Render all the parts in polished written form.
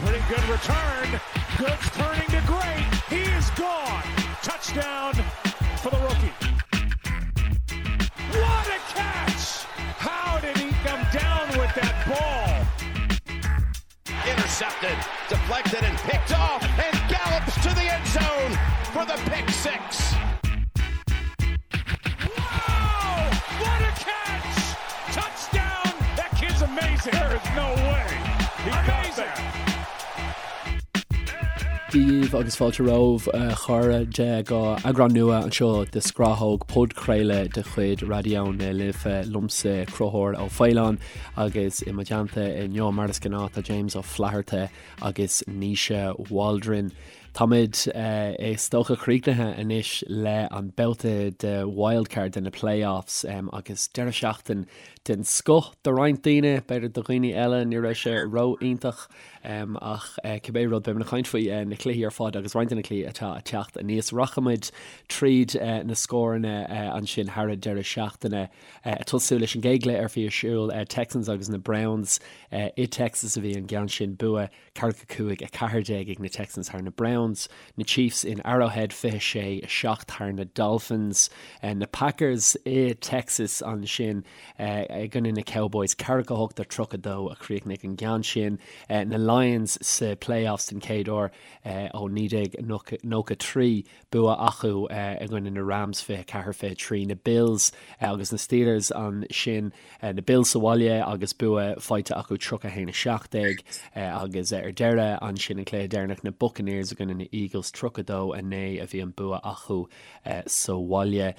Pretty good return. Goods turning to great. He is gone. Touchdown for the rookie. What a catch! How did he come down with that ball? Intercepted, deflected, and picked off, and gallops to the end zone for the pick six. Wow! What a catch! Touchdown! That kid's amazing. There is no way. He amazing. Dia dhaoibh agus fáilte romhaibh a chairde go eagrán nua anseo de Scrathóg, podchraoladh de chuid Raidió na Life liomsa Conchúr Ó Faoláin agus i mo theannta inniu mar is gnáth tá James Ó Flatharta agus Naoise Waldron. Táimid is dócha críochnaithe anois le an babhta de wildcard de na playoffs agus deireadh seachtain den scoth do roinnt daoine, b'fhéidir do dhaoine eile ní raibh sé ró-iontach ach cibé rud beimid ag caint faoi na cluichí ar fad agus roinnt de na cluichí atá ag teacht aníos. Rachaimid tríd na scóranna ansin thar an deireadh seachtaine ag tosú leis an gcéad chluiche a bhí ar siúl Texans agus na Browns i Texas a bhí an ceann sin bua 45, 14 ag na Texans thar na Browns, na Chiefs in Arrowhead 26, 7 thar na Dolphins, na Packers i Texas ansin i gcoinne na Cowboys 48 32 a chríochnaigh an ceann sin, na Lions sa playoffs den chéad uair ó 1993, bua acu i gcoinne na Rams 24, 23, na Bills agus na Steelers ansin, na Bills sa bhaile agus bua faighte acu 31, 17 agus ar deireadh ansin an cluiche deireanach na Buccaneers i gcoinne na Eagles 32, 9 a bhí an bua acu sa bhaile.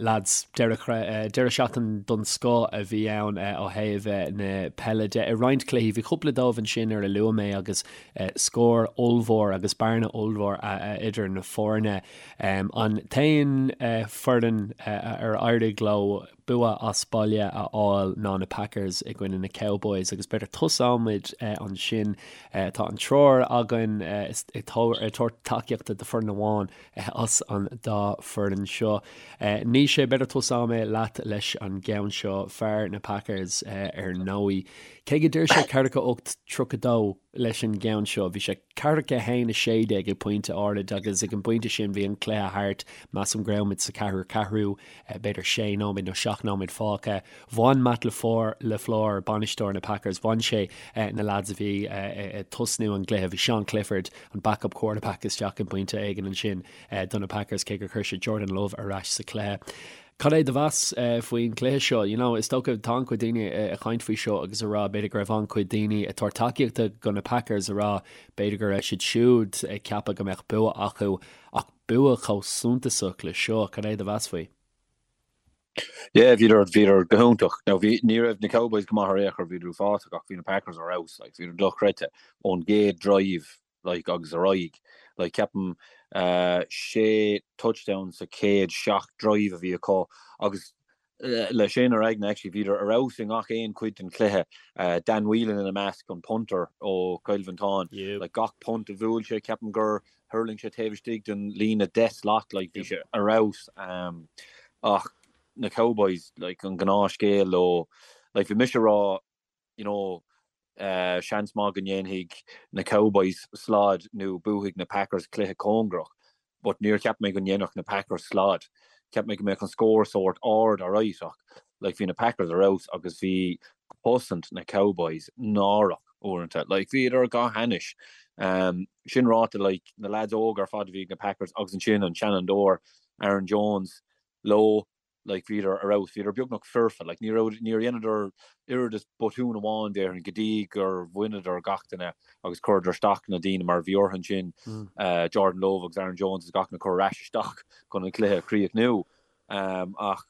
Lads, deireadh seachtain don scoth a bhí ann ó thaobh na peile de. I roinnt cluichí bhí cúpla dóibh ansin ar a luaigh mé agus scór ollmhór agus bearna ollmhór idir na foirne. An t-aon foireann ar éirigh leo bua as baile a fháil ná na Packers i gcoinne na Cowboys agus b'fhéidir tosóimid ansin. Tá an triúr againn ag tabhairt tacaíochta do foireann amháin as an dá foireann seo. Naoise, b'fhéidir tosóidh mé leat leis an gceann seo, fear na Packers ar ndóigh. Cé go d'iarr sé 48 32 leis an gceann seo, bhí sé 41 16 ag pointe áirid agus ag an bpointe sin bhí an cluiche thart, measaim go raibh muid sa ceathrú ceathrú, b'fhéidir sé nóiméad nó seacht nóiméad fágtha. Bhain Matt LaFleur, bainisteoir na Packers, bhain sé na lads a bhí ag tosnú an gcluiche, bhí Sean Clifford, an backup quarterback isteach ag pointe éigin ansin do na Packers cé gur chuir sé Jordan Love ar ais sa chluiche. Cad é do mheas faoin chluiche seo? You know, is dócha tá an-chuid daoine ag caint faoi seo agus ag rá b'fhéidir go raibh an-chuid daoine ag tabhairt tacaíochta do na Packers ag rá b'fhéidir go raibh siad siúd ag ceapadh go mbeadh bua acu ach bua chomh suntasach le seo, cad é do mheas faoi? Yeah, bhíodar, bhíodar go hiontach. Now bhí, ní raibh na Cowboys go maith ar aon chor, bhíodar uafásach ach bhí na Packers ar fheabhas, like, bhíodar dochreidte ón gcéad drive like agus ar aghaidh. Like ceapaim sé touchdown sa chéad seacht drive a bhí acu agus le sin ar aigne actually bhíodar ar fheabhas i ngach aon chuid den chluiche. Dan Whelan ina measc, an punter ó Chill Mhantáin. Like gach punt a bhuail sé ceapaim gur thuirling sé taobh istigh den líne 10 slat like bhí sé ar fheabhas. Ach na Cowboys like an gnáthscéal leo like bhí mise ag rá you know, seans maith go ndéanfaidh na Cowboys slad nó buafaidh na Packers cluiche cóngarach, but níor cheap mé go ndéanfadh na Packers slad. Cheap mé go mbeadh an scór sórt ard alright ach like bhí na Packers ar fheabhas agus bhí cosaint na Cowboys náireach uaireanta. Like bhíodar go hainnis. Um, sin ráite like na lads óga ar fad a bhí ag na Packers agus ansin an seanfhondúir Aaron Jones leo like bhíodar ar fheabhas, bhíodar beagnach foirfe, like ní raibh, níor dheineadar oiread is botún amháin déarfainn go dtí gur bhaineadar gach duine agus chuireadar isteach na daoine mar bhí orthu ansin Jordan Love agus Aaron Jones agus gach duine a chur ar ais isteach chun an cluiche a chríochnú. Ach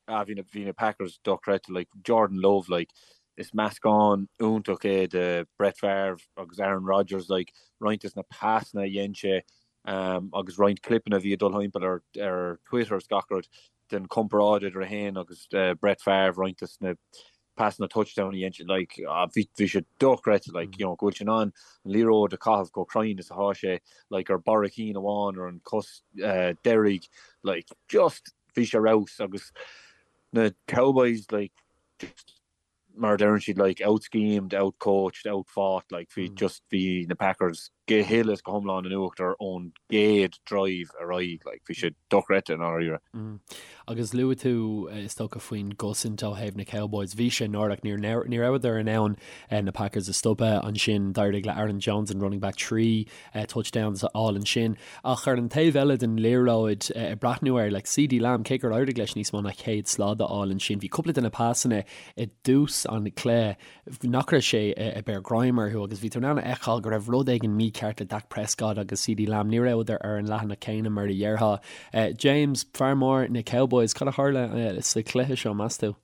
ah bhí na, bhí na Packers dochreidte, like Jordan Love like is meascán iontach é de Brett Favre agus Aaron Rodgers like roinnt des na pasanna a dhein sé agus roinnt clipeanna a bhí ag dul thimpeall ar ar Twitter is gach rud den chomparáid idir é féin agus Brett Favre, roinnt des na pasanna touchdown a dhein sé, like bhí bhí sé dochreidte, like you know go bhfuil sé in ann an liathróid a chaitheamh chomh cruinn is atá sé, like ar barra a chinn amháin ar an cos deiridh, like just bhí sé ar fheabhas agus na Cowboys like just. mar a deireann siad like out-schemed, out-coached, out-fought, like bhí just bhí na Packers go huile is go hiomlán in uachtar ón gcéad drive ar aghaidh, like bhí sé dochreidte i ndáiríre. Agus luaigh tú is dócha faoin gcosaint ó thaobh na Cowboys, bhí sé náireach, ní ní rabhadar in ann na Packers a stopadh ansin, d'éirigh le Aaron Jones an running back 3 touchdowns a fháil ansin. Ach ar an taobh eile den liathróid, ag breathnú air, like CeeDee Lamb, cé gur éirigh leis níos mó ná 100 slad a fháil ansin, bhí cúpla de na pasanna i dtús an chluiche nach raibh sé ag beir greim orthu agus bhí tú in ann a fheiceáil go raibh rud éigin mícheart le Dak Prescott agus CeeDee Lamb, ní rabhadar ar an leathanach céanna mar a dhéarfá. James, fear mór na Cowboys, cad a tharla sa chluiche seo, meas tú?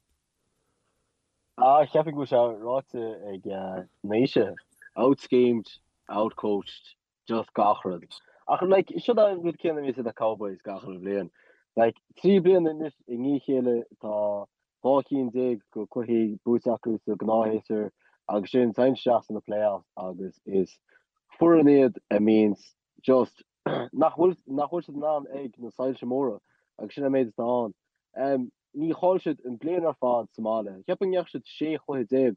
Ah, cheapfainn go bhfuil sé ráite ag Naoise. Out-schemed, out-coached, just gach rud. Ach like, seo an rud céanna a bhíonns ag na Cowboys gach uile bhliain. Like, 3 bliana anois i ndiaidh a chéile tá 12 cinn de cluichí buaite acu sa gnáthshéasúr agus sin téann isteach sna playoffs agus is foireann iad a mbíonns just nach bhfuil nach bhfuil siad in ann ag na soilse móra agus sin an méid atá ann. Um, Ní chaill siad an bliain ar fad sa mbaile. Cheapfainn go ndeachaigh siad 16 chluiche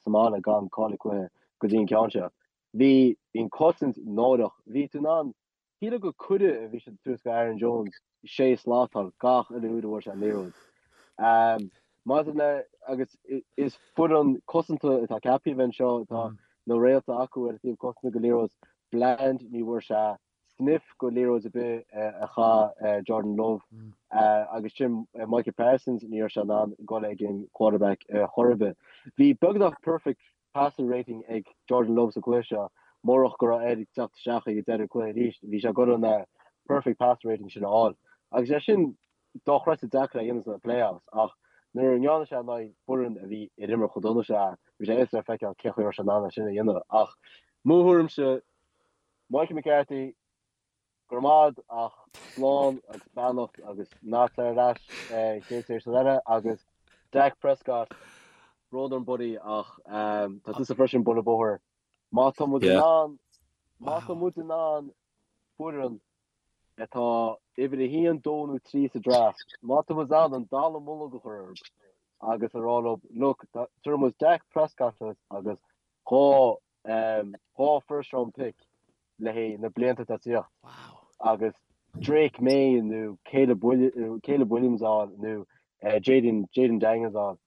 sa mbaile gan cailleadh cluiche go dtí an ceann seo. Bhí an cosaint náireach. Bhí tú in ann, shílfeá gur cuireadh a bhí siad ag tabhairt go Aaron Jones sé slat a fháil gach uile uair a bhfuair sé an liathróid. Maidir le, agus is foireann cosanta atá ceaptha a bheith anseo, tá na réalta acu ar an taobh cosanta go liathróid. Bland, ní bhfuair sé sniff go liathróid ar bith a chaith Jordan Love agus sin Micah Parsons, ní raibh sé in ann dul ag an quarterback chor ar bith. Bhí beagnach perfect passer rating ag Jordan Love sa chluiche seo, murach go raibh air teacht isteach ag deireadh an cluiche arís, bhí sé ag dul an perfect passer rating sin a fháil. Agus é sin dochreidte deacair a dhéanamh sna playoffs ach nuair a ndearna sé in aghaidh foireann a bhí ag imirt chomh dona seo, bhí sé éasca le feiceáil cén chaoi a raibh sé in ann é sin a dhéanamh. Ach mo thuairimse, Mike McCarthy, Go raibh maith agat ach slán agus beannacht agus ná tar ar ais chéad séasúr eile agus Dak Prescott, brón orm buddy ach tá tusa freisin buille bóthair. Má tá muid in ann, má tá muid in ann foireann atá uimhir a haon, dó nó trí sa draft, má tá muid in ann an dallamullóg a chur orthu agus a rá leo, look, tabharfaidh muid Dak Prescott duit agus 2 2 first round pick le haghaidh na blianta atá ag tíocht agus Drake Maye nó Caleb Caleb Williams a fháil nó Jayden Jayden Daniels a fháil.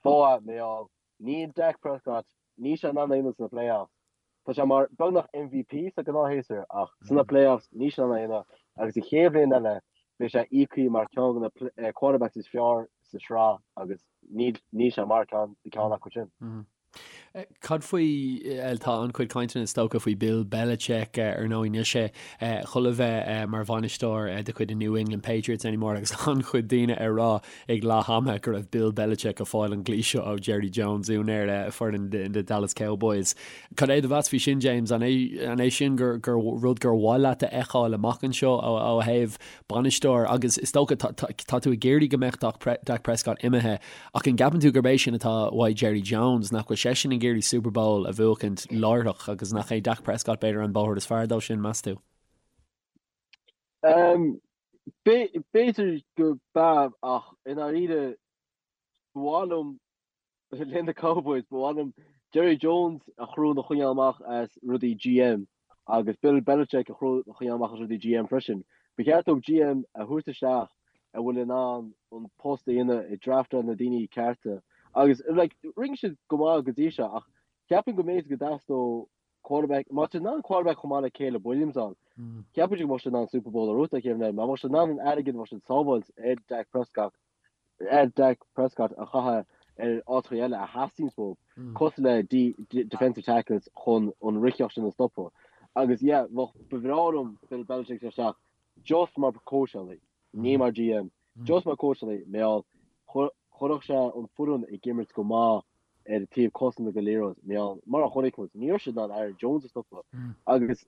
Fáth mar níl Dak Prescott níl sé in ann é a dhéanamh sna playoffs. Tá sé mar beagnach MVP sa gnáthshéasúr ach sna playoffs níl sé in ann é a dhéanamh agus an chéad bhliain eile beidh sé íoctha mar ceann de na quarterbacks is fearr sa sraith agus níl níl sé mar ceann ceann acu sin. Cad faoi, tá an-chuid cainteanna is dócha faoi Bill Belichick, ar ndóigh níl sé chun a bheith mar bhainisteoir de chuid na New England Patriots anymore agus an-chuid daoine ag rá ag leath ama go raibh Bill Belichick ag fáil an glaoch seo ó Jerry Jones, úinéir foireann the Dallas Cowboys. Cad é do mheas faoi sin James? An é an é sin gur gur rud gur mhaith leat a fheiceáil amach anseo ó thaobh bainisteoir agus is dócha tá tú ag iarraidh go mbeadh Dak Prescott imithe Ach an gceapann tú gurb é sin atá uaidh Jerry Jones, nach bhfuil seisean ag iarraidh Super Bowl a bhuachaint láithreach agus nach é Dak Prescott b'fhéidir an bóthar is fearr dó sin, meas tú? B'fhéidir go b'ea ach i ndáiríre ba mhaith liom le na Cowboys, ba mhaith liom Jerry Jones a chriú a choinneáil amach as rudaí GM agus Bill Belichick a chriú a choinneáil amach as rudaí GM freisin. Ba cheart dóibh GM a thabhairt isteach a bhfuil in ann an post a dhéanamh ag draftáil na daoine cearta agus like rinne siad go maith go dtí seo ach ceapaim go mb'fhéidir go dteastódh quarterback má tá siad in ann quarterback chomh maith le Caleb Williams a fháil ceapaim go mbeadh siad in ann Super Bowl a bhuachaint an chéad bhliain má bheadh siad in ann an airgead a bheadh siad ag sábháilt ar Dak Prescott ar Dak Prescott a chaitheamh ar áiteacha eile a theastaíonn uathu cosúil le defensive tackles chun an ritheacht sin a stopadh agus yeah bheadh ba bhreá liom Bill Belichick isteach just mar cóitseálaí, ní mar GM, just mar cóitseálaí, mar chuirfeadh sé an foireann ag imirt go maith ar an taobh cosanta go liathróid, mar mar a chonaic muid, ní raibh siad in ann Aaron Jones a stopadh. Agus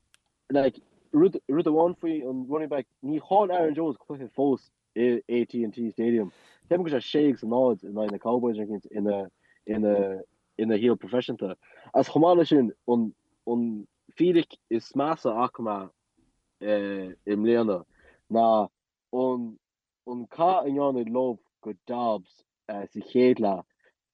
like rud rud amháin faoi an running back, ní chaill Aaron Jones cluiche fós i AT&T Stadium. Ceapaim go bhfuil sé 6 agus 0 in aghaidh na Cowboys ar ina ina ina shaol proifisiúnta. Agus chomh maith leis sin, an an fíric is measa a fhaca mé i mbliana ná an an cath a ndearna Love go Dobbs sa chéad leath,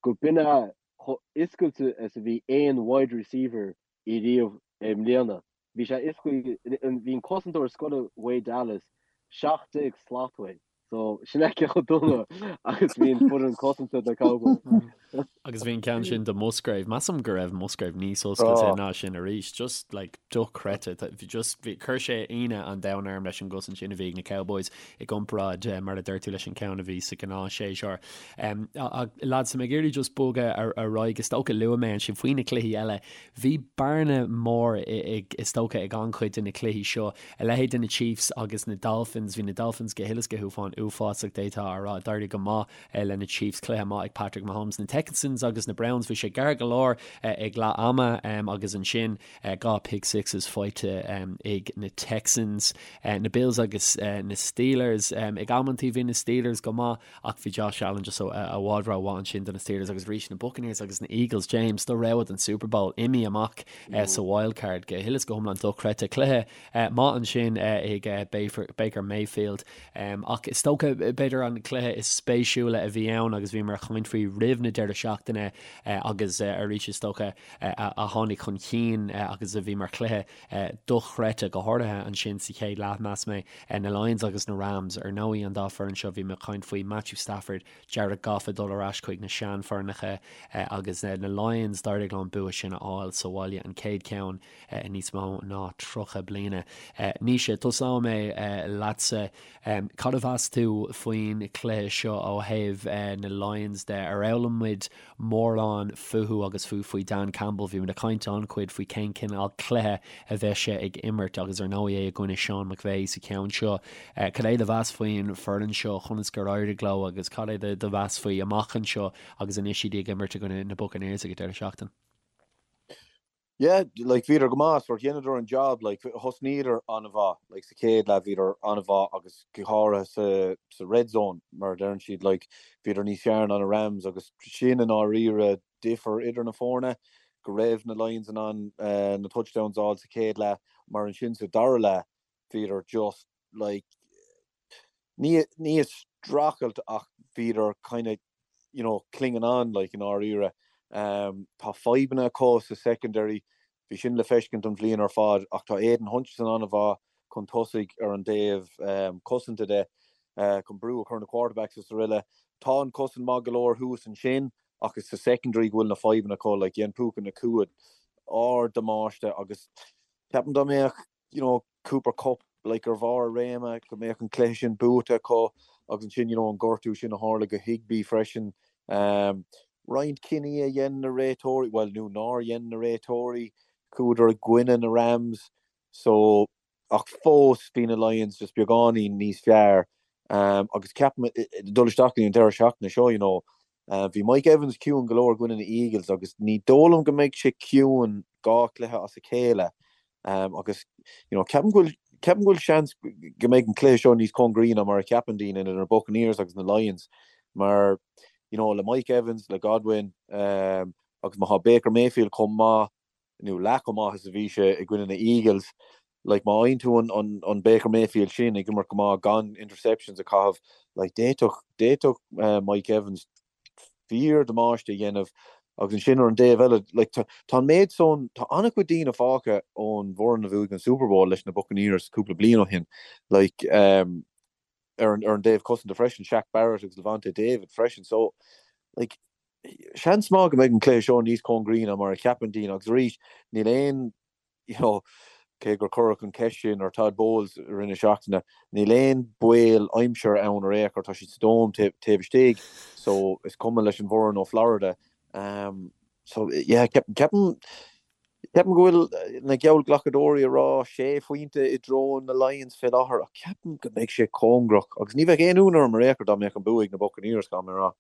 go b'in é. Chomh oscailte is a bhí aon wide receiver i riamh i mbliana. Bhí sé oscailte, bhí an cosantóir scoir uaidh Dallas 17 slat uaidh. So sin é cé chomh dona agus bhí an foireann cosanta do Cowboys. Agus bhí an ceann sin do Musgrave. Measaim go raibh Musgrave níos oscailte ná sin arís. Just like dochreidte. Bhí just bhí chuir sé ionadh an domhain orm leis an gcosaint sin a bhí ag na Cowboys i gcomparáid mar a deir tú leis an ceann a bhí sa ghnáthshéasúr. Lads, tá mé ag iarraidh just bogadh ar aghaidh. Is dócha luaigh mé ansin faoi na cluichí eile. Bhí bearna mór is dócha ag an-chuid de na cluichí seo. A leithéid de na Chiefs agus na Dolphins. Bhí na Dolphins go huile is go hiomlán uafásach d'fhéadfá a rá. D'éirigh go maith le na Chiefs. Cluiche maith ag Patrick Mahomes. Na Texans agus na Browns, bhí sé gar go leor ag leath ama agus ansin 2 pick sixes faighte ag na Texans. Na Bills agus na Steelers. Ag amantaí bhí na Steelers go maith ach bhí Josh Allen just i bhfad rómhaith ansin do na Steelers agus arís na Buccaneers agus na Eagles. James, do rogha don Super Bowl imithe amach sa wild card go huile is go hiomlán dochreidte. Cluiche maith ansin ag Baker Mayfield ach is dócha b'fhéidir an cluiche is spéisiúla a bhí ann agus bhíomar ag caint faoi roimh na deireadh seachtaine agus arís is dócha a tháinig chun cinn agus a bhí mar chluiche dochreidte, go háirithe ansin sa chéad leath, mheas mé, na Lions agus na Rams. Ar ndóigh, an dá foireann seo, bhí mé ag caint faoi Matthew Stafford, Jared Goff ag dul ar ais chuig na seanfhoirneacha agus na Lions, d'éirigh leo an bua sin a fháil sa bhaile, an chéad cheann i níos mó ná 30 bliana. Naoise, tosóidh mé leatsa. Cad a mheas tú faoin chluiche seo ó thaobh na Lions de? Ar fhoghlaim muid mórán fúthu agus fiú faoi Dan Campbell. Bhí muid ag caint an-chuid faoi cén cineál cluiche a bheas sé ag imirt agus ar ndóigh é i gcoinne Sean McVay sa cheann seo. Cad é do mheas faoin foireann seo, conas gur éirigh leo agus cad é do mheas faoi amach anseo agus anois iad ag imirt i gcoinne na Buccaneers ag an deireadh seachtaine? Yeah, like bhíodar go maith, sort dheineadar an job, like thosnaíodar an-mhaith, like sa chéad leath bhíodar an-mhaith agus go háirithe sa sa red zone mar a deireann siad, like bhíodar níos fearr ná na Rams agus sin i ndáiríre difear idir na foirne, go raibh na Lions in ann na touchdowns a fháil sa chéad leath mar ansin sa dara leath bhíodar just like ní ní ag streachailt ach bhíodar kind of you know, clinging on like i ndáiríre. Tá fadhbanna acu sa secondary, bhí sin le feiscint an bhliain ar fad ach tá Aidan Hutchinson an-mhaith chun tosaigh ar an dtaobh cosanta de, chun brú a chur ar na quarterbacks is aroile. Tá an cosaint maith go leor thuas ansin ach is sa secondary go bhfuil na fadhbanna acu, like dhein Puka Nacua ard-damáiste agus ceapaim dá mbeadh you know, Cooper Kupp, like, ar bharr a réime, go mbeadh an cluiche sin buaite acu agus ansin, you know, an gortú sin a tharla go Higbee freisin. Um, roinnt cinní a dhein na réiteoirí, bhuel, nó nár dhein na réiteoirí, chuadar i gcoinne na Rams, so, ach fós bhí na Lions just beagáinín níos fearr. Um, agus ceapaim, dul isteach go dtí an deireadh seachtaine seo, you know, uh, bhí Mike Evans ciúin go leor i gcoinne na Eagles agus ní dóigh liom go mbeidh sé ciúin dhá chluiche as a chéile. Agus you know ceapaim go bhfuil ceapaim go bhfuil seans go mbeidh an cluiche seo níos cóngaraí ná mar a cheapann daoine idir na Buccaneers agus na Lions mar you know le Mike Evans, le Godwin um, agus má tá Baker Mayfield chomh maith nó leath chomh maith is a bhí sé i gcoinne na Eagles, like má fhaigheann tú an, an, an Baker Mayfield sin ag imirt go maith gan interceptions a chaitheamh, like d'fhéadfadh d'fhéadfadh uh, Mike Evans fíor-damáiste a dhéanamh agus ansin ar an dtaobh eile, like, tá, tá an méid san, tá an-chuid daoine fágtha ón bhfoireann a bhuaigh an Super Bowl leis na Buccaneers cúpla bliain ó shin, like, um, ar an, ar an dtaobh cosanta freisin, Shaq Barrett agus Lavonte David freisin, so, like, seans maith go mbeidh an cluiche seo níos cóngaraí ná mar a cheapann daoine agus arís, níl aon you know, cé gur cuireadh an cheist sin ar Todd Bowles i rith na seachtaine, níl aon baol aimsire ann ar aon chor, tá siad sa dome taobh istigh, so is cuma leis an bhfoireann ó Florida. Um, so yeah, ceapaim ceapaim go bhfuil na geallghlacadóirí ag rá sé phointe i dtreo na Lions fé láthair, ach ceapaim go mbeidh sé cóngarach agus ní bheadh aon ionadh orm ar aon chor dá mbeadh an bua ag na Buccaneers, caithfidh mé a rá.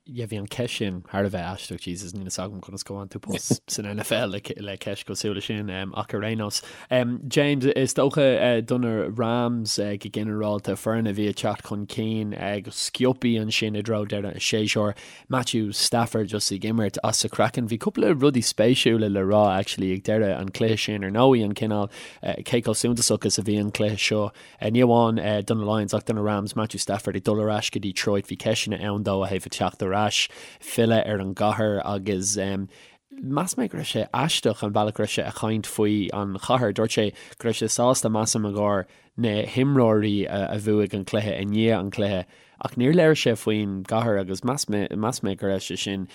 Yeah, bhí an ceist sin thar a bheith aisteach, Jesus, níl a fhios agam conas go bhfaigheann tú post san NFL le, le ceist cosúil leis sin, um, ach ar aon nós. Um, James, is dócha uh, do na Rams uh, go ginearálta foireann a bhí ag teacht chun cinn uh, go sciobtha ansin i dtreo deireadh an séasúir. Matthew Stafford just ag imirt as a chraiceann. Bhí cúpla rudaí spéisiúla le rá actually ag deireadh an cluiche sin ar ndóigh an cineál uh, cé chomh suntasach is a bhí an cluiche seo Ní amháin do na Lions ach do na Rams, Matthew Stafford ag dul ar ais go Detroit, bhí ceisteanna ann dó ó thaobh a teacht ar. ar ais, filleadh ar an gcathair agus mheas mé go raibh sé aisteach an bealach go raibh sé a chaint faoi an chathair. Dúirt sé go raibh sé sásta, measaim, i gcomhair na himreoirí a bhuaigh an cluiche i ndiaidh an cluiche ach níor labhair sé faoin gcathair agus mheas mé mheas mé go raibh sé sin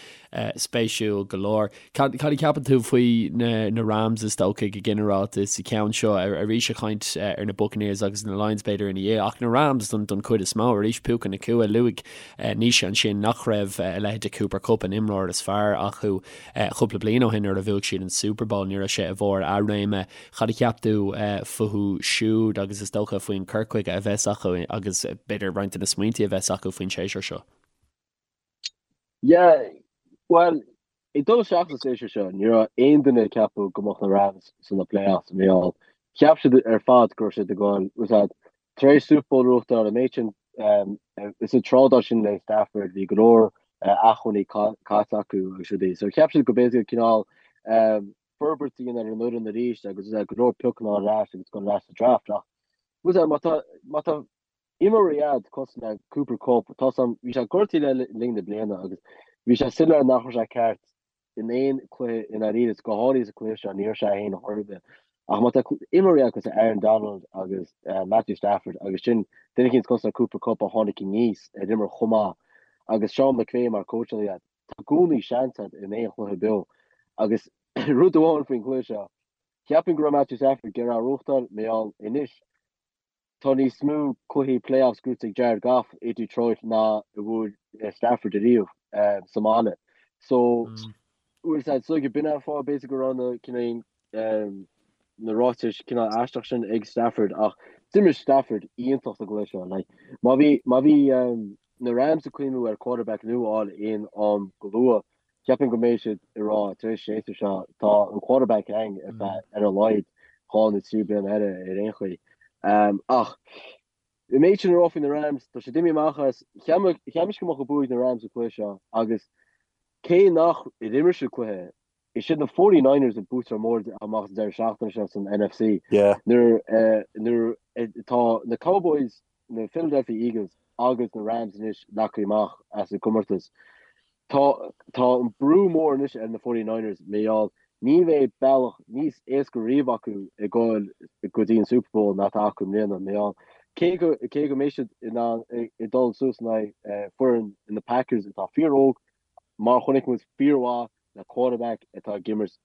spéisiúil go leor. Cad cad a cheapann tú faoi na na Rams is dócha go ginearálta sa cheann seo arís ag caint ar na Buccaneers agus na Lions b'fhéidir ina dhiaidh ach na Rams don don chuid is mó arís Puka Nacua luaigh Naoise ansin nach raibh a leithéid de Cooper Kupp an imreoir is fearr acu cúpla bliain ó shin nuair a bhuaigh siad an Super Bowl ní raibh sé i bharr a réime Cad a cheap tú fúthu siúd agus is dócha faoin cur chuige a bheas acu agus b'fhéidir roinnt de na smaointe a bheas acu faoin séasúr seo? Yeah, bhuel, ag dul isteach sa séasúr seo, ní raibh aon duine ag ceapadh go mbeadh na Rams sna playoffs, mar gheall. Cheap siad ar fad go raibh siad ag dul, was that, tar éis Super Bowl a bhuachtáil, an méid sin, is an trádáil sin le Stafford, bhí go leor acmhainní caite acu agus rudaí. So cheap siad go b'fhéidir cineál forbairt a dhéanamh ar an fhoireann arís agus go leor piocanna ar ais agus dul ar ais sa draft ach was má tá má tá imreoirí agat cosúil le Cooper Kupp tá sam bhí sé gortaithe le linn na bliana agus bhí sé soiléir nach raibh sé ceart in aon cluiche i ndáiríre is go háirithe sa cluiche seo ní raibh sé é féin chor ar bith ach má tá imreoirí agat cosúil le Aaron Donald agus Matthew Stafford agus sin duine eicínt cosúil le Cooper Kupp a tháinig aníos ar imir chomh maith agus Sean McVay mar cóitseálaí agat Tá i gcónaí seans agat in aon chluiche beo agus rud amháin faoin chluiche seo, cheapfainn go raibh Matthew Stafford ag iarraidh a bhuachtáil, mar gheall anois tá níos mó cluichí playoffs gnóthaithe ag Jared Goff i Detroit ná a bhuaigh Stafford ariamh sa mbaile. So, bhfuil a fhios agat, so b'in an fáth b'fhéidir go raibh na cineál na ráitis cineál aisteach sin ag Stafford ach d'imir Stafford iontach sa gcluiche seo. Like, má bhí má bhí na Rams ag cuimhniú ar quarterback nua a fháil aon am go luath, ceapaim go mbeidh siad ag rá tar éis séasúr seo tá an quarterback againn ar feadh ar a laghad 2 nó 3 bliana eile ar aon chaoi. Ach an méid sin a rá faoi na Rams, tá siad imithe amach as, cheap mise go mbeadh an bua ag na Rams sa cluiche seo agus cé nach ar imir siad cluiche Is iad na 49ers an buaiteoir mór amach an deireadh seachtaine seo san NFC. Nuair nuair atá na Cowboys, na Philadelphia Eagles agus na Rams anois leagtha amach as an gcomórtas, tá tá an brú mór anois ar na 49ers mar gheall ní bheidh bealach níos éasca riamh acu ag dul go dtí an Super Bowl ná atá acu i mbliana mar gheall cé go cé go mbeidh siad in ann ag dul suas in aghaidh foireann na Packers atá fíor-óg mar chonaic muid fíormhaith le quarterback atá ag imirt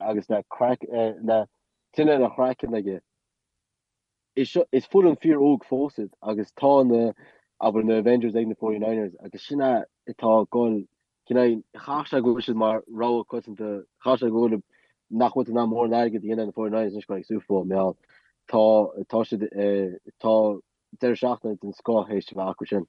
agus le craic le tine ina chraiceann aige. Is seo is foireann fíor óg fós iad agus tá na abair na Avengers ag na 49ers agus sin é atá ag dul cineál chaithfeadh sé go bhfuil siad mar rogha coitianta chaithfeadh sé go bhfuil nach bhfuil in ann mórán airgid a dhéanamh ar na 49ers anois go ag Super Bowl mar gheall tá tá siad tá deireadh seachtaine den scoth théis a bheith acu sin.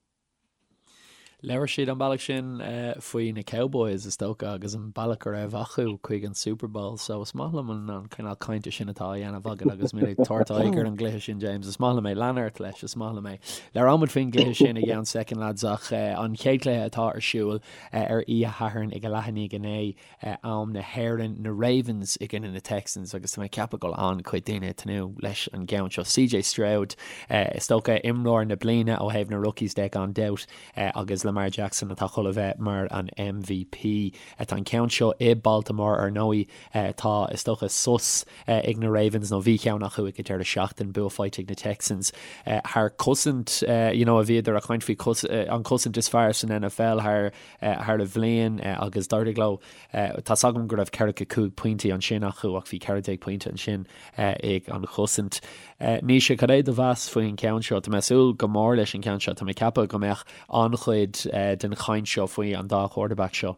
Labhair siad an bealach sin faoi na Cowboys, is dócha, agus an bealach a raibh acu chuig an Super Bowl. So is maith liom an cineál cainte sin atá á dhéanamh agat agus muid ag tabhairt aghaidh ar an gcluiche sin, James. Is maith liom é. Lean ort leis, is maith liom é. Labhróimid faoin gcluiche sin i gceann soicind, lads, ach an chéad chluiche atá ar siúl ar oíche Shathairn ag a leath i ndiaidh a naoi, am na hÉireann, na Ravens i gcoinne na Texans agus tá mé ag ceapadh go bhfuil an-chuid daoine ag tnúth leis an gceann seo. CJ Stroud, is dócha, imreoir na bliana ó thaobh na rookies de gan dabht agus Lamar Jackson atá chun a bheith mar an MVP. Tá an ceann seo i Baltimore ar ndóigh. Tá, is dócha, sos ag na Ravens nó bhí ceann acu ag an deireadh seachtain, bua faighte ag na Texans thar cosaint you know a bhíodar ag caint faoi an cosaint is fearr san NFL thar thar an bhliain agus d'éirigh leo. Tá's agam go raibh 45 pointí ansin acu ach bhí 14 pointe ansin ag an chosaint. Naoise, cad é do mheas faoin cheann seo? Tá mé ag súil go mór leis an cheann seo. Tá mé ag ceapadh go mbeadh an-chuid den chaint seo faoi an dá quarterback seo.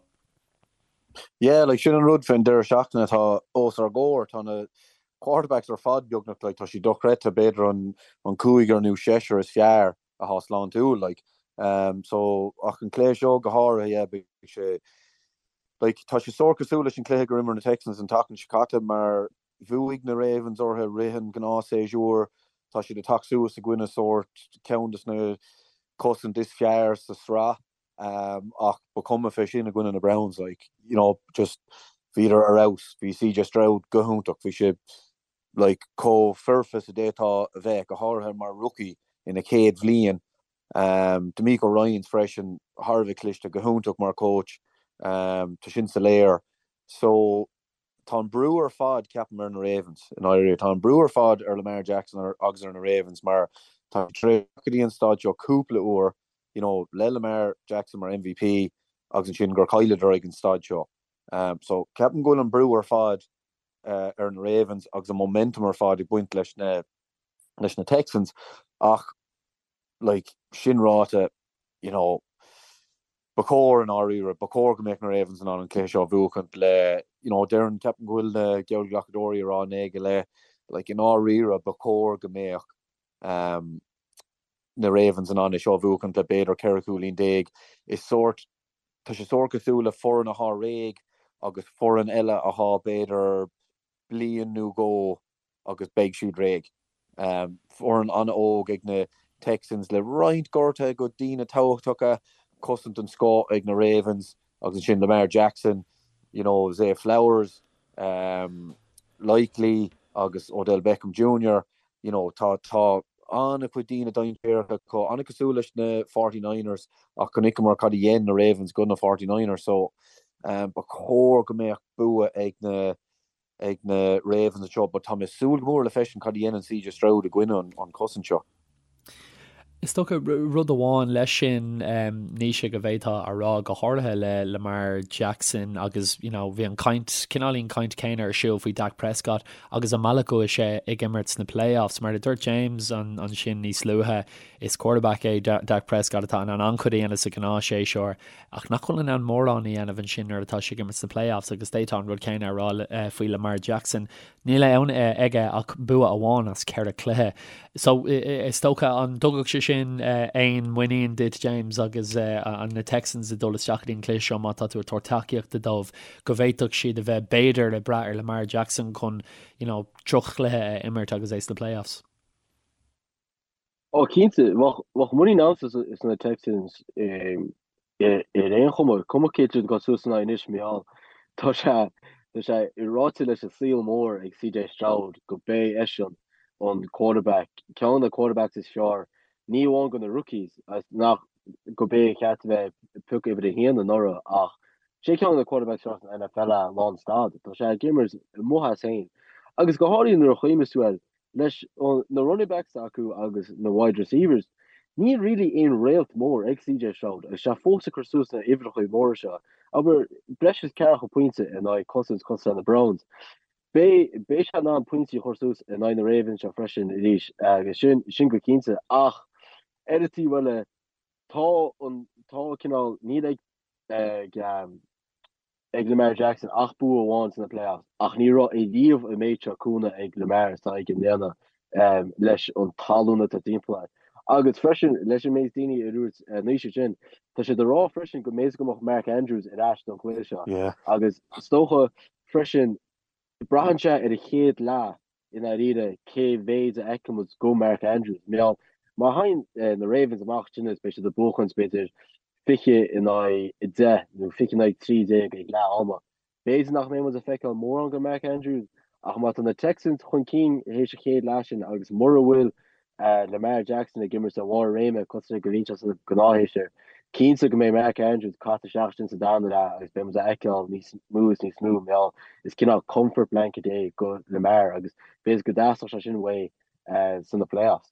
Yeah, like sin an rud faoin deireadh seachtaine atá os ár gcomhair. Tá na quarterbacks ar fad beagnach, like tá siad dochreidte, b'fhéidir an cúigear nó seisear is fearr atá sláintiúil like so ach an cluiche seo go háirithe yeah beidh sé like tá sé sórt cosúil leis an cluiche gur imir na Texans an tseachtain seo caite mar bhuaigh na Ravens orthu rith an gnáthshéasúr tá siad ag teacht suas i gcoinne sórt ceann des na cosaint is fearr sa sraith um, ach ba cuma fé sin i gcoinne na Browns like you know just bhíodar ar fheabhas bhí CJ Stroud go hiontach bhí sé like chomh foirfe is a d'fhéadfá a bheith, go háirithe mar rookie ina chéad bhliain. DeMeco Ryans freisin, thar a bheith cliste, go hiontach mar coach, tá sin soiléir. So, tá an brú ar fad, ceapaim, ar na Ravens, i ndáiríre. Tá an brú ar fad ar Lamar Jackson agus ar na Ravens mar tá siad tar éis go dtí an staid seo cúpla uair, you know, le Lamar Jackson mar MVP agus ansin gur chailleadar ag an staid seo. So, ceapaim go bhfuil an brú ar fad ar na Ravens agus an momentum ar fad ag baint leis na leis na Texans ach like sin ráite, you know, ba chóir i ndáiríre, ba chóir go mbeadh na Ravens in ann an cluiche seo a bhuachaint le, you know, déarfainn, ceapaim go bhfuil na geallghlacadóirí ag rá 9 go leith, like i ndáiríre ba chóir go mbeadh um, na Ravens in ann é seo a bhuachaint le b'fhéidir 14 cúilín. Is sórt, tá sé sórt cosúil le foireann athá réidh agus foireann eile athá b'fhéidir bliain nó dhó agus beidh siad réidh. Foireann an-óg ag na Texans le roinnt gortuithe go daoine tábhachtacha, cosaint den scoth ag na Ravens agus ansin Lamar Jackson, you know, Zay Flowers, Likely agus Odell Beckham Jr. You know, tá tá an-chuid daoine dainséarach acu, an-cosúil leis na 49ers ach chonaiceamar cad a dhein na Ravens go na 49ers so ba chóir go mbeadh bua ag na ag na Ravens anseo but tá mé ag súil go mór le feiscint cad a dhéanann CJ Stroud i gcoinne an chosaint seo. Is dócha rud amháin leis sin, Naoise, go bhféadfá a rá, go háirithe le Lamar Jackson agus you know bhí an caint, cineáilín caint céanna ar siúl faoi Dak Prescott agus an mbealach go bhfuil sé ag imirt sna playoffs. Mar a dúirt James ansin níos luaithe, is quarterback é Dak Prescott atá in ann an-chuid a dhéanamh sa ghnáthshéasúr. ach nach bhfuil in ann mórán a dhéanamh ansin nuair atá sé ag imirt sna playoffs agus d'fhéadfá an rud céanna a rá faoi Lamar Jackson. Níl ann aige ach bua amháin as cheithre chluiche. So, is dócha, an dtugadh sé sin aon muinín duit, James, agus na Texans ag dul isteach go dtí an cluiche seo, má tá tú ag tabhairt tacaíochta dóibh, go bhféadfadh siad a bheith b'fhéidir ag brath ar Lamar Jackson chun, you know, droch-chluiche a imirt agus é sna playoffs? Ó cinnte, bheadh muinín agamsa sna Texans ar aon chuma, cuma cé hiad atá suas ina aghaidh anois, mar gheall tá sé tá sé ráite leis an saol mór ag CJ Stroud go b'é eisean an quarterback, ceann de na quarterbacks is fearr, ní amháin go na rookies, nach go b'é a cheart a bheith pioctha uimhir a haon anuraidh ach sé ceann de na quarterbacks is fearr san NFL é lán stad. Tá sé ag imirt amuigh as féin. Agus go háirithe nuair a chuimhníos tú air, Leis na running backs acu agus na wide receivers, níl really aon réalt mór ag CJ Stroud agus sé fós ag cur suas na uimhreacha móra seo. Abair, breis is ceathracha pointe in aghaidh cosaint cosúil leis na Browns. Beidh beidh sé in ann pointí a chur suas in aghaidh na Ravens seo freisin arís agus sin sin go cinnte ach ar an taobh eile tá an tá cineál níl ag ag ag Lamar Jackson ach bua amháin sna playoffs ach ní raibh ariamh an méid seo cúnamh ag Lamar is atá aige i mbliana leis an talún atá timpeall air. Agus freisin leis an méid daoine a dúirt Naoise sin, tá siad ag rá freisin go mb'fhéidir go mbeadh Mark Andrews ar ais don chluiche seo agus is dócha freisin braitheann sé ar an chéad leath i ndáiríre cé mhéid a fheicfidh muid go Mark Andrews. Mar gheall, má thagann na Ravens amach ansin is beidh siad ag buachaint b'fhéidir 20 in aghaidh 10 nó 20 in aghaidh 13 ag leath ama. B'fhéidir nach mbeidh muid ag feiceáil mórán go Mark Andrews ach má tá na Texans chun cinn théis an chéad leath sin agus mura bhfuil Lamar Jackson ag imirt ar bharr a réime cosúil le go mbíonn sé sna gnáthshéasúir. Cinnte go mbeidh Mark Andrews caite isteach ansin sa darna leath agus beidh muid a fheiceáil níos mó is níos mó mar gheall is cineál comfort blanket é go Lamar agus b'fhéidir go dteastódh sé sin uaidh sna playoffs.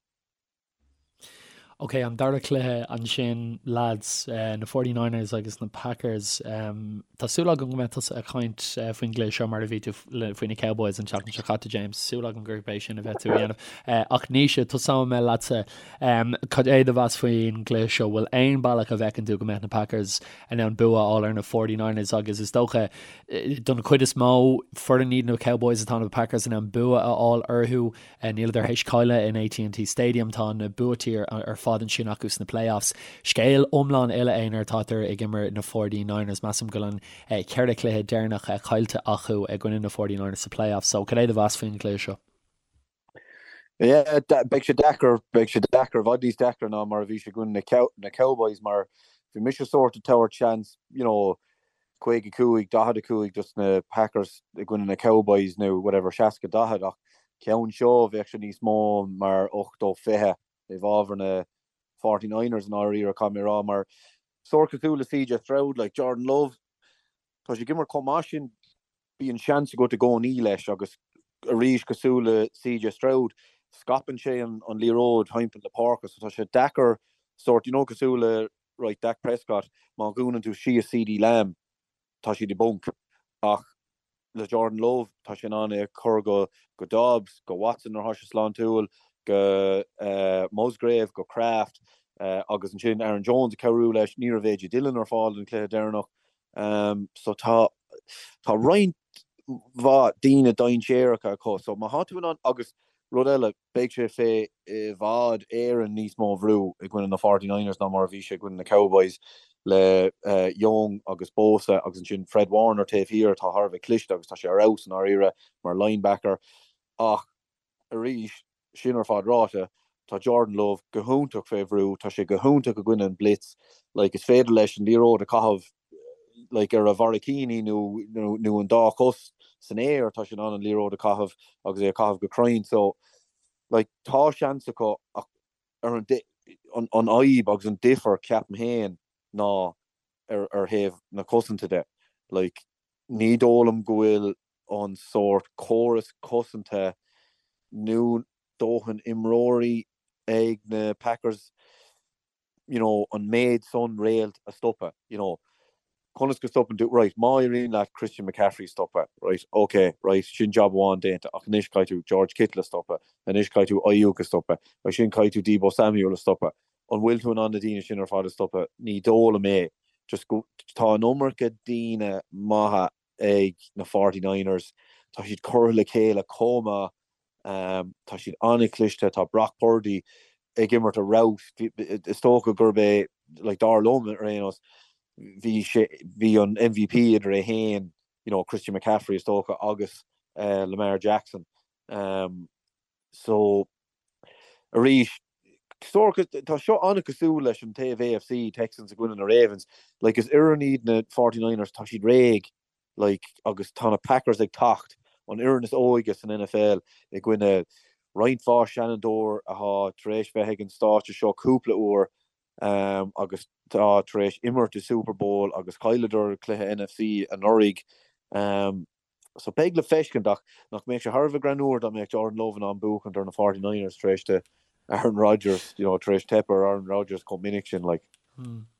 Ok, an dara cluiche ansin lads, na 49ers agus na Packers. Tá súil agam go mbeidh tusa ag caint faoin gcluiche seo mar a bhí tú faoi na Cowboys an tseachtain seo caite, James. Súil agam gurb é sin a bheidh tú a dhéanamh. Ach Naoise, tosóidh mé leatsa. Cad é do mheas faoin gcluiche seo? Bhfuil aon bealach a bhfeiceann tú go mbeadh na Packers in ann bua a fháil ar na 49ers agus is dócha don chuid is mó foireann iad na Cowboys atá na Packers in ann bua a fháil orthu. Níleadar théis cailleadh in AT&T Stadium, tá na buaití ar fad ansin acu sna playoffs. Scéal iomlán eile é nuair atátar ag imirt na 49ers. Measaim go bhfuil an ceithre chluiche deireanach caillte acu i gcoinne na 49ers sa playoffs. So cad é do mheas faoin gcluiche seo? Yeah, beidh sé deacair, beidh sé deacair, i bhfad níos deacra ná mar a bhí sé i gcoinne na Cowboys mar bhí mise sórt ag tabhairt seans, you know, 55, 45 dos na Packers i gcoinne na Cowboys nó whatever, 60, 40 ach ceann seo bheadh sé níos mó mar 80, 20 i bhfabhar na. 49ers i ndáiríre, caithfidh mé a rá, mar sórt cosúil le CJ Stroud, like Jordan Love, tá sé ag imirt chomh maith sin, bíonn seans agat i gcónaí leis agus arís cosúil le CJ Stroud, scaipeann sé an liathróid thimpeall na páirce so tá sé deacair sórt, you know cosúil le right Dak Prescott, má dhúnann tú síos CeeDee Lamb, tá siad i bponc ach le Jordan Love tá sé in ann é a chur go go Doubs, go Watson nuair atá sé sláintiúil, go Musgrave, go Kraft agus ansin Aaron Jones ag cabhrú leis. Ní raibh AJ Dillon ar fáil don chluiche deireanach so tá tá roinnt mhaith daoine dainséaracha acu so má tá tú in ann agus rud eile Beidh sé fé i bhfad Éireann níos mó bhrú i gcoinne na 49ers ná mar a bhí sé i gcoinne na Cowboys le Young agus Bosa agus ansin Fred Warner taobh thiar atá thar a bheith cliste agus tá sé ar fheabhas i ndáiríre mar linebacker. Ach arís, sin ar fad ráite, tá Jordan Love go hiontach fé bhrú, tá sé go hiontach i gcoinne an blitz, like is féidir leis an liathróid a chaitheamh like ar a bharraicíní nó nó an dá chos san aer tá sé in ann an liathróid a chaitheamh agus é a chaitheamh go cruinn so like tá seans acu ach ar an an an fhadhb agus an difear ceapaim féin ná ar ar thaobh na cosanta de like ní dóigh liom go bhfuil an sórt córas cosanta nó dóthain imreoirí ag na Packers you know, an méid san réalt a stopadh, you know. Conas go stopann tú, right, má éiríonn leat Christian McCaffrey a stopadh, right, ok, right, sin jab amháin déanta, ach anois caithfidh tú George Kittle a stopadh, anois caithfidh tú Aiyuk a stopadh, ansin caithfidh tú Deebo Samuel a stopadh. An bhfuil tú in ann na daoine sin ar fad a stopadh? Ní dóigh liom é. Just go, tá an iomarca daoine maithe ag na 49ers. Tá siad curtha le chéile chomh maith. Tá siad an-chliste. Tá Brock Purdy ag imirt ar fheabhas. Is dócha gurb é, like, dar liom ar aon nós, bhí sé, bhí an MVP idir é féin, you know, Christian McCaffrey is dócha agus Lamar Jackson. So, arís, tá seo an-cosúil leis an taobh AFC, Texans i gcoinne na Ravens. Like, is fhoireann iad na 49ers, tá siad réidh, like, agus tá na Packers ag teacht, an fhoireann is óige san NFL i gcoinne roinnt mhaith seanfhondúir atá tar éis bheith ag an stáitse seo cúpla uair um, agus tá tar éis imirt i Super Bowl agus chailleadar cluiche NFC anuraidh. Um, So beidh le feiscint ach nach mbeadh sé thar a bheith greannmhar dá mbeadh Jordan Love in ann buachaint ar na 49ers tar éis do Aaron Rodgers, you know, tar éis teip ar Aaron Rodgers chomh minic sin, like.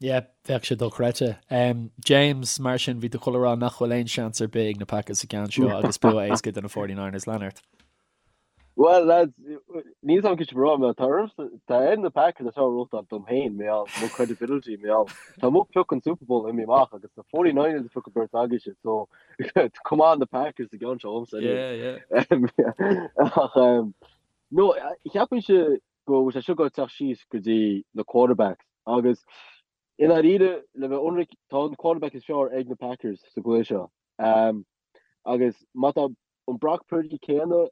Yeah, bheadh sé dochreidte. Um, James, mar sin, bhí tú ag dul a rá nach bhfuil aon seans ar bith ag na Packers sa gceann seo agus bua éasca do na 49ers lean ort. Well, lads, níl a fhios agam cad é mar tá tá ar na Packers atá róta dom féin mé mo credibility mé Tá mo pioc an Super Bowl imithe amach agus na 49ers a phioc an bheirt agaibhse so come on the Packers sa gceann seo dhomsa Yeah, yeah. Ach um, no, cheapfainnse go bhfuil sé seo ag teacht síos go dtí na quarterbacks agus i ndáiríre le bheith ionraic tá an quarterback is fearr ag na Packers sa gcluiche seo. Um, agus má tá an Brock Purdy céanna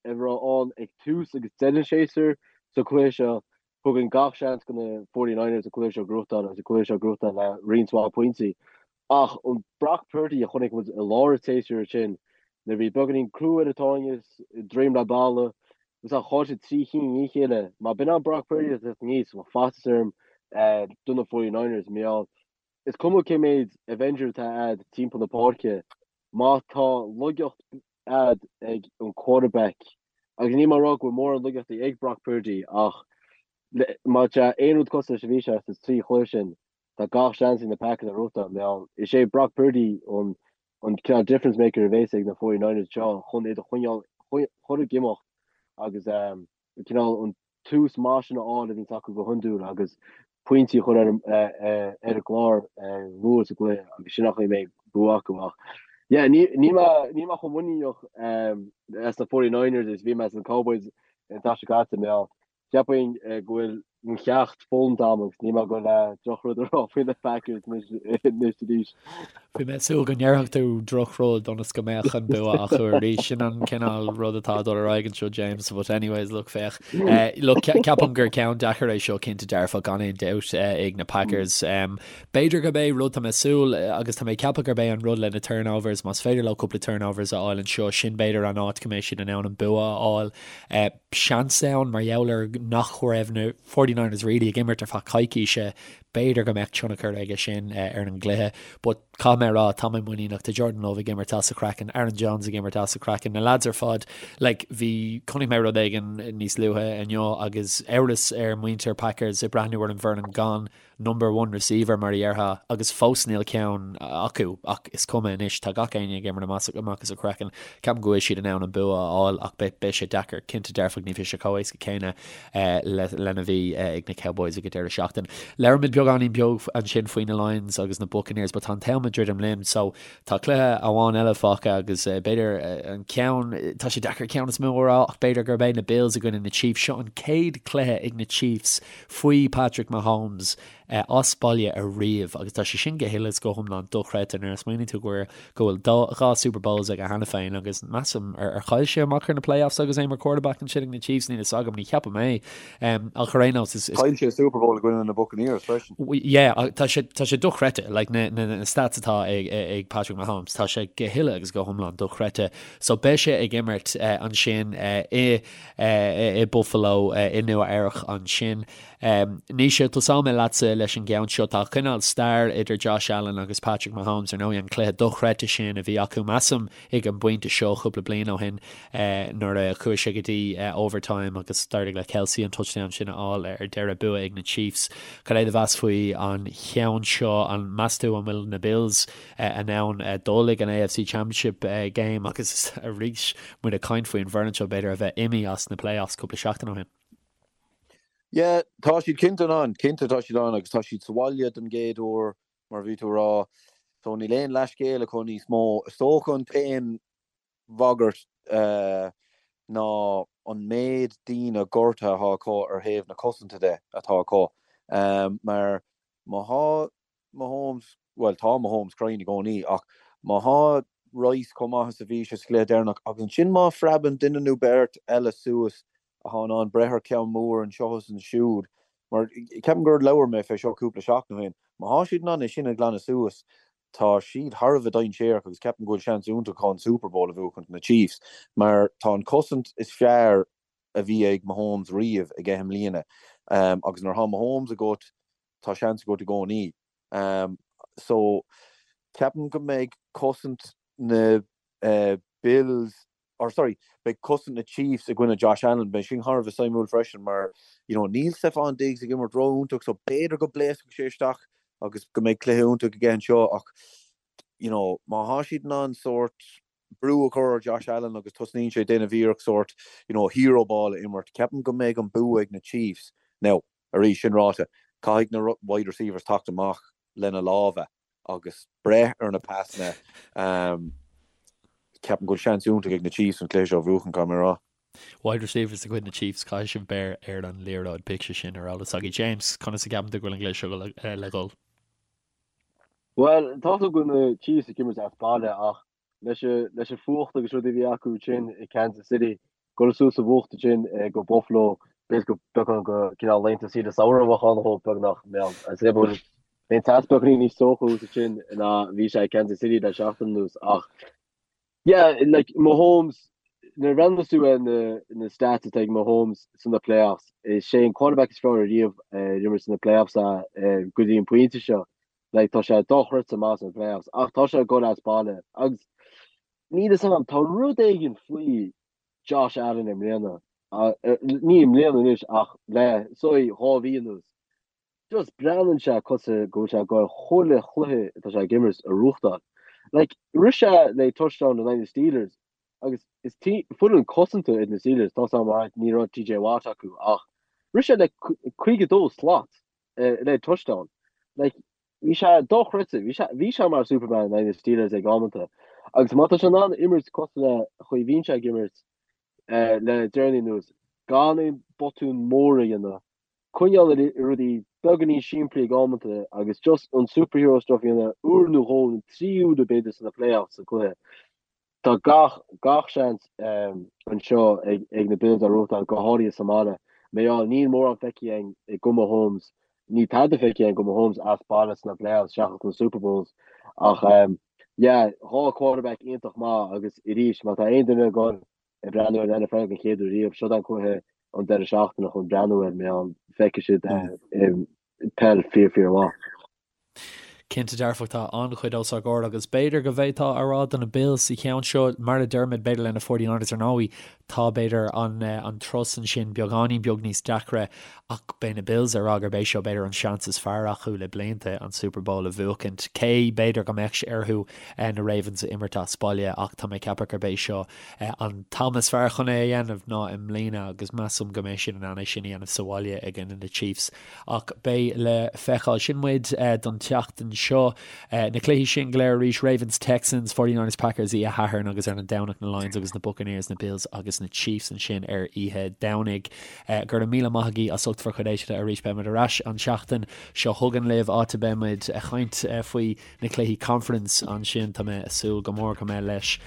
a raibh ann ag tús agus deireadh an tséasúir sa chluiche seo. Thugainn gach seans do na 49ers an cluiche seo a ghnóthachtáil agus an cluiche seo a ghnóthachtáil le roinnt mhaith pointí. Ach an Brock Purdy a chonaic muid i lár an tséasúir sin, nuair a bhí beagáinín crú ar an tairne, droim le balla, agus a chaill sé 3 chinn i ndiaidh a chéile, má b'in an Brock Purdy atá teacht aníos, bheadh faitíos orm do na 49ers. Mar gheall, is cuma cé méid Avenger atá a'd timpeall na páirce, má tá laigeacht a'd ag an quarterback, agus níl mé ag rá go bhfuil mórán laigeachtaí ag Brock Purdy, ach má tá aon rud cosúil leis a bhí sé sa trí chluiche sin, tá gach seans ag na Packers a ghnóthachtáil. Mar gheall, is é Brock Purdy an an cineál difference maker a bhéas ag na 49ers seo chun iad a choinneáil chur ag imeacht agus cineál an tús maith sin a fháil a bhíonns acu go hiondúil agus pointí a chur ar ar an gclár luath sa gcluiche agus sin an chaoi a mbeidh bua acu ach yeah níl mé níl mé chomh muiníneach as na 49ers is bhí mé as na Cowboys an tseachtain seo caite mar gheall cheapfainn go bhfuil mo cheacht foghlamtha agam agus níl mé ag dul le drochrud a rá faoi na Packers anois arís. Bhí mé ag súil go ndéarfadh tú drochrud ionas go mbeadh an bua acu arís. Sin an cineál rud atá ag dul ar aghaidh anseo, James, but anyways, look, féach. Look, ceapaim gur ceann deacair é seo cinnte dearfa gan aon dabht ag na Packers. B'fhéidir gurb é rud tá mé ag súil agus tá mé ag ceapadh gurb é an rud le na turnovers, más féidir leo cúpla turnovers a fháil anseo, sin b'fhéidir an áit go mbeidh siad in ann an bua a fháil. Seans ann mar gheall ar nach raibh na 49ers. 49ers really ag imirt ar feadh coicíse, b'fhéidir go mbeadh tionchar aige sin ar an gcluiche. But caithfidh mé a rá, tá mé muiníneach, tá Jordan Love ag imirt as a chraiceann, Aaron Jones ag imirt as a chraiceann, na lads ar fad, like bhí, chonaic mé rud éigin níos luaithe inniu agus amhras ar muintir Packers ag breathnú ar an bhfoireann gan number one receiver mar a dhéarfá agus fós níl ceann acu ach is cuma anois, tá gach éinne ag imirt amach as a gcraiceann. Ceapaim go bhfuil siad in ann an bua a fháil ach beidh sé deacair, cinnte dearfach ní bheidh sé chomh éasca céanna lena bhí ag na Cowboys ag an deireadh seachtaine. Labhair muid beagáinín beag ansin faoi na Lions agus na Buccaneers but tá an t-am ag druidim linn so tá cluiche amháin eile fágtha agus b'fhéidir an ceann, tá sé deacair ceann is mó a rá ach b'fhéidir gurb é na Bills i gcoinne na Chiefs. Seo an chéad cluiche ag na Chiefs faoi Patrick Mahomes as baile ariamh agus tá sé sin go huile is go hiomlán dochreidte nuair a smaoiníonn tú go go bhfuil dá Super Bowls aige cheana féin agus measaim ar ar chaill sé amach ar na playoffs agus é mar quarterback ansin ag na Chiefs níl fhios agam ní cheapaim é ach ar aon nós is Chaill sé Super Bowl i gcoinne na Buccaneers freisin. Yeah tá sé tá sé dochreidte like na na na stats atá ag ag Patrick Mahomes tá sé go huile agus go hiomlán dochreidte so beidh sé ag imirt ansin i i Buffalo i Nua Eabhrac ansin. Naoise, tosóidh mé leatsa leis an gceann seo. Tá cineál stair idir Josh Allen agus Patrick Mahomes, ar ndóigh, an cluiche dochreidte sin a bhí acu, measaim, ag an bpointe seo cúpla bliain ó shin nuair a chuaigh sé go dtí overtime agus d'éirigh le Kelce an touchdown sin a fháil ar deireadh, bua ag na Chiefs. Cad é do mheas faoi an cheann seo? An meas tú an bhfuil na Bills in ann dul ag an AFC Championship Game agus arís muid ag caint faoin bhfoireann seo b'fhéidir a bheith imithe as na playoffs cúpla seachtain ó shin. Yeah, tá siad cinnte in ann, cinnte tá siad ann agus tá siad sa bhaile don gcéad uair mar a bhí tú a rá so níl aon leathscéal acu níos mó. Is dócha an t-aon bhagairt ná an méid daoine gortaithe atá acu ar thaobh na cosanta de atá acu mar má thá Mahomes, bhuel tá Mahomes cruinn i gcónaí ach má thá Rice chomh maith is a bhí sé sa chluiche deireanach agus ansin má phreabann duine nó beirt eile suas athá in ann breith ar cheann mór anseo is ansiúd, mar ceapaim gur labhair mé fé seo cúpla seachtain ó shin, má thá siad in ann é sin a ghlanadh suas tá siad thar a bheith dainséarach agus ceapaim go bhfuil seans iontach acu an Super Bowl a bhuachaint na Chiefs mar tá an cosaint is fearr a bhí ag Mahomes riamh aige i mbliana agus nuair athá Mahomes agat tá seans agat i gcónaí. So, ceapaim go mbeidh cosaint na Bills, or sorry, beidh cosaint na Chiefs i gcoinne Josh Allen, beidh sin thar a bheith suimiúil freisin mar, you know, níl Stefon Diggs ag imirt ró-iontach so b'fhéidir go bpléascfaidh sé isteach agus go mbeidh cluiche iontach aige anseo ach, you know, má thá siad in ann sórt brú a chur ar Josh Allen agus tosnaíonn sé ag déanamh iarracht sórt, you know, hero ball a imirt, ceapaim go mbeidh an bua ag na Chiefs. Now, Arís, sin ráite, caithfidh na wide receivers teacht amach lena lámha agus breith ar na pasanna. Ceapaim go bhfuil seans iontach ag na Chiefs an cluiche seo a bhuachan, caithfidh mé a rá. Wide receivers de chuid na Chiefs, caithfidh sibh beir ar an liathróid, bíodh sé sin ar eolas agaibh. James, conas a gceapann tú go bhfuil an cluiche seo le dhul? Bhuel, tá 'fhios agam go bhfuil na Chiefs ag imirt as baile ach leis an fuacht agus rudaí a bhí acu ansin i Kansas City, dul suas sa bhfuacht ansin go Buffalo, b'fhéidir go beagán go cineál laethanta saoire samhraidh a bheadh ann dhóibh beagnach, mbeadh an teas beagáinín níos teocha thuas ansin ná bhí sé i Kansas City le seachtain anuas ach yeah, like Mahomes, nuair a bhreathnaíos tú ar na na stats atá ag Mahomes sna playoffs, is é an quarterback is fearr ariamh ar imir sna playoffs go dtí an pointe seo. Like, tá sé dochreidte maith sna playoffs, ach tá sé ag dul as baile. Agus níl fhios agam, tá rud éigin faoi Josh Allen i mbliana, ní i mbliana anois ach le say 2 mhí anuas. Just breathnaíonn sé cosúil go bhfuil sé ag dul chuile chluiche atá sé ag imirt a bhuachtáil. Like, rith sé le touchdown in aghaidh na Steelers agus is foireann cosanta iad na Steelers, tá 'fhios agam alright ní raibh TJ Watt acu ach rith sé le 52 slat. le touchdown. Like, bhí sé dochreidte, bhí sé, bhí sé mar Superman in aghaidh na Steelers ag amanta. Agus má tá sé in ann imirt cosúil le chaoi bhíonn sé ag imirt le deireanaí anuas, gan aon botún mór a dhéanamh, coinneáil ar rudaí beagáinín simplí ag amanta agus just an superhero stuff a dhéanamh uair nó dhó nó 3 uaire b'fhéidir sna playoffs sa cluiche. Tá gach, gach seans anseo ag na Bills a bhuachtáil, go háirithe sa mbaile. Mar gheall, níl mórán feicthe againn go Mahomes, níl tada feicthe againn go Mahomes as baile sna playoffs seachas na Super Bowls. Ach yeah, 2 quarterback iontach maith agus arís, má tá aon duine ag dul ag breathnú ar an NFL den chéad uair riamh, seo an cluiche. an deireadh seachtaine chun breathnú air mar feicfidh siad peil fíor fíor mhaith. Cinnte dearfach tá an-chuid os ár gcomhair agus b'fhéidir go bhféadfá a rá do na Bills sa cheann seo, mar a deirimid, b'fhéidir le na 49ers ar ndóigh, tá b'fhéidir an an turas ansin beagáinín beag níos deacra ach beidh na Bills ag rá gurb é seo b'fhéidir an seans is fearr acu le blianta an Super Bowl a bhuachaint. Cé b'fhéidir go mbeadh sé orthu na Ravens a imirt as baile ach tá mé ag ceapadh gurb é seo an t-am is fearr chun é a dhéanamh ná i mbliana agus measaim go mbeidh siad in ann é sin a dhéanamh sa bhaile i gcoinne na Chiefs. Ach beidh le feiceáil. Sin muid don tseachtain seo. Na cluichí sin go léir arís, Ravens, Texans, 49ers, Packers oíche Shathairn agus ar an Domhnach na Lions agus na Buccaneers, na Bills agus na Chiefs ansin ar oíche Domhnaigh. Go raibh míle maith agaibh as ucht bhur gcuid éisteachta arís. Beidh muid ar ais an tseachtain seo chugainn libh, áit a mbeidh muid ag caint faoi na cluichí conference ansin. Tá mé ag súil go mór go mbeidh leis.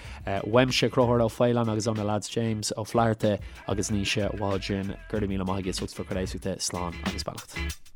Uaimse, Conchúr Ó Faoláin agus ó na lads James Ó Flatharta agus Naoise Waldron. Go raibh míle maith agaibh as ucht bhur gcuid éisteachta. Slán agus beannacht.